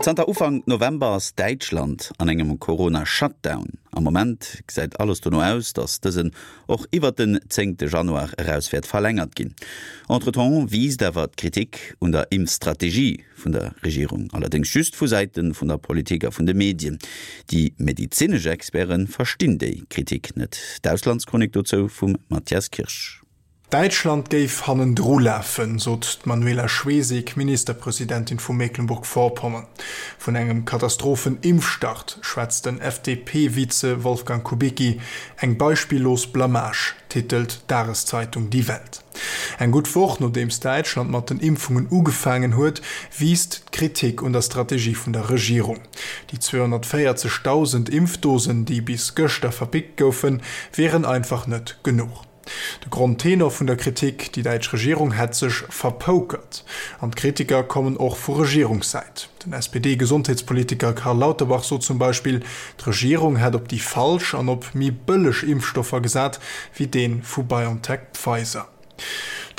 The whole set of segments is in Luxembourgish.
Zanter Ufank November ass Däitschland an engem Corona-Shutdown. Am Moment gesäit alles dono aus, datt dësen och iwwert den zéngte Januar eraus wäert verlängert ginn. Entretemps wiisst awer d'Kritik un der Impfstrategie vun der Regierung, allerdéngs just vu Säite vun der Politik a vun de Medien. Déi medezinesch Experte verstinn déi Kritik net. D'Auslandschronik dozou vum Mathias Kirsch. Däitschland géif hannendru lafen, sot d'Manuela Schwesig, Ministerpresidentin vu Mecklenburg-Vorpommern. Vun engem Katastrophen-Impfstart schwätzt den FDP-Vize Wolfgang Kubicki. Eng beispillos Blamage, titelt d'Dageszeitung Die Welt. Eng gutt Woch nodeems Däitschland mat den Impfungen ugefaangen huet, wiisst d'Kritik un der Strategie vun der Regierung. Déi 240.000 Impfdosen, déi bis gëschter verpickt goufen, wieren einfach net genuch. De Grondtenor vun der Kritik, déi däitsch Regierung hätt sech verpokert. An d'Kritiker kommen och vu Regierungssäit. Den SPD-Gesondheetspolitiker Karl Lauterbach sot zum Beispill, d'Regierung hätt op déi falsch an op méi bëlleg Impfstoffer gesat, wéi dee vu BioNTech-Pfizer.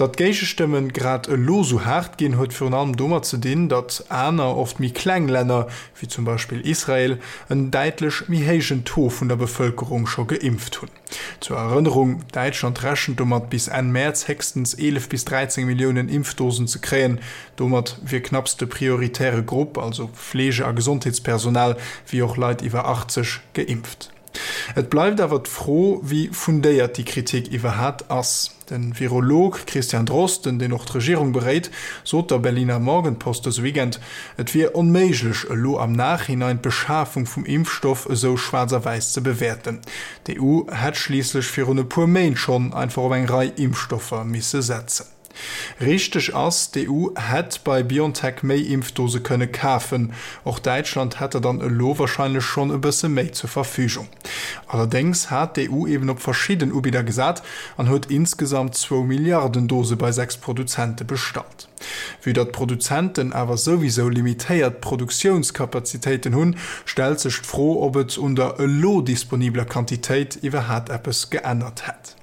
Datt d'Géigestëmmen grad elo sou haart ginn, huet virun allem domat ze dinn, datt aner, oft méi kleng Länner, wéi zum Beispill Israel, en däitlech méi héijen Taux vun der Bevëlkerung scho geimpft hunn. Zur Erënnerung, Däitschland rechent domat, bis Enn Mäerz héchstens 11 bis 13 Milliounen Impfdosen ze kréien. Domat wier knapps de prioritäre Grupp, also Fleege a Gesondheetspersonal, wéi och Leit iwwer 80, geimpft. Et bleift awer d'Fro, wéi fundéiert déi Kritik iwwerhat ass. De Virolog Christian Drosten, deen och d'Regierung beréit, sot der Berliner Morgenpost dëse Weekend, et wier onméiglech, elo am Nachhinein d'Beschafung vum Impfstoff esou schwaarz a wäiss ze bewäerten. D'EU hätt schliisslech virun e puer Méint schonn einfach op eng Rei Impfstoffer misse setzen. Richteg ass, d'EU hätt bei BioNTech méi Impfdose kënne kafen. Och Däitschland hätt der dann elo warscheinlech schonn e bësse méi zur Verfügung. Allerdéngs hat d'EU eben op verschidden Ubidder gesat an huet insgesamt zwou Milliarden Dose bei 6 Produzente bestallt. Vue datt d'Produzenten awer souwisou limitéiert Produktiounskapazitéiten hunn, stellt sech d'Fro, ob et un der elo disponibeler Quantitéit iwwerhat eppes geännert hätt.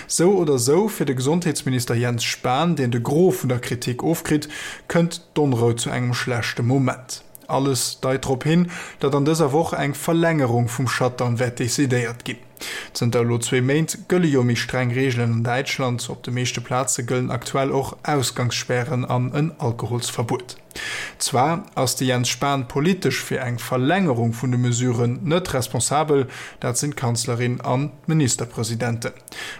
Sou oder sou, fir de Gesondheetsminister Jens Spahn, deen de Gros vun der Kritik ofkritt, kënnt d'Onrou zu engem schlechte Moment. Alles deit drop hin, datt an dëser Woch eng Verlängerung vum Shutdown wäert decidéiert ginn. Zënter elo zwee Méint gëlle jo méi streng Reegelen an Däitschland. Op de meeschte Plaze gëllen aktuell och Ausgangsspären an en Alkoholsverbuet. Zwar ass de Jens Spahn politesch fir eng Verlängerung vun de Mesuren net responsabel, dat sinn d'Kanzlerin an d'Ministerpresidenten.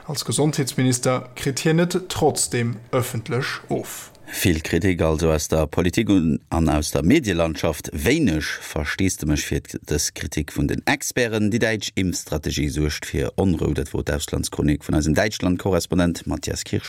Als Gesondheetsminister kritt hien et trotzdeem ëffentlech of. Vill Kritik also aus der Politik an aus der Medielandschaft, wéineg Versteesdemech fir dës Kritik vun den Experten. Déi däitsch Impfstrategie suergt fir Onrou, dat wor d'Auslandschronik vun eisem Däitschland-Korrespondent Mathias Kirsch.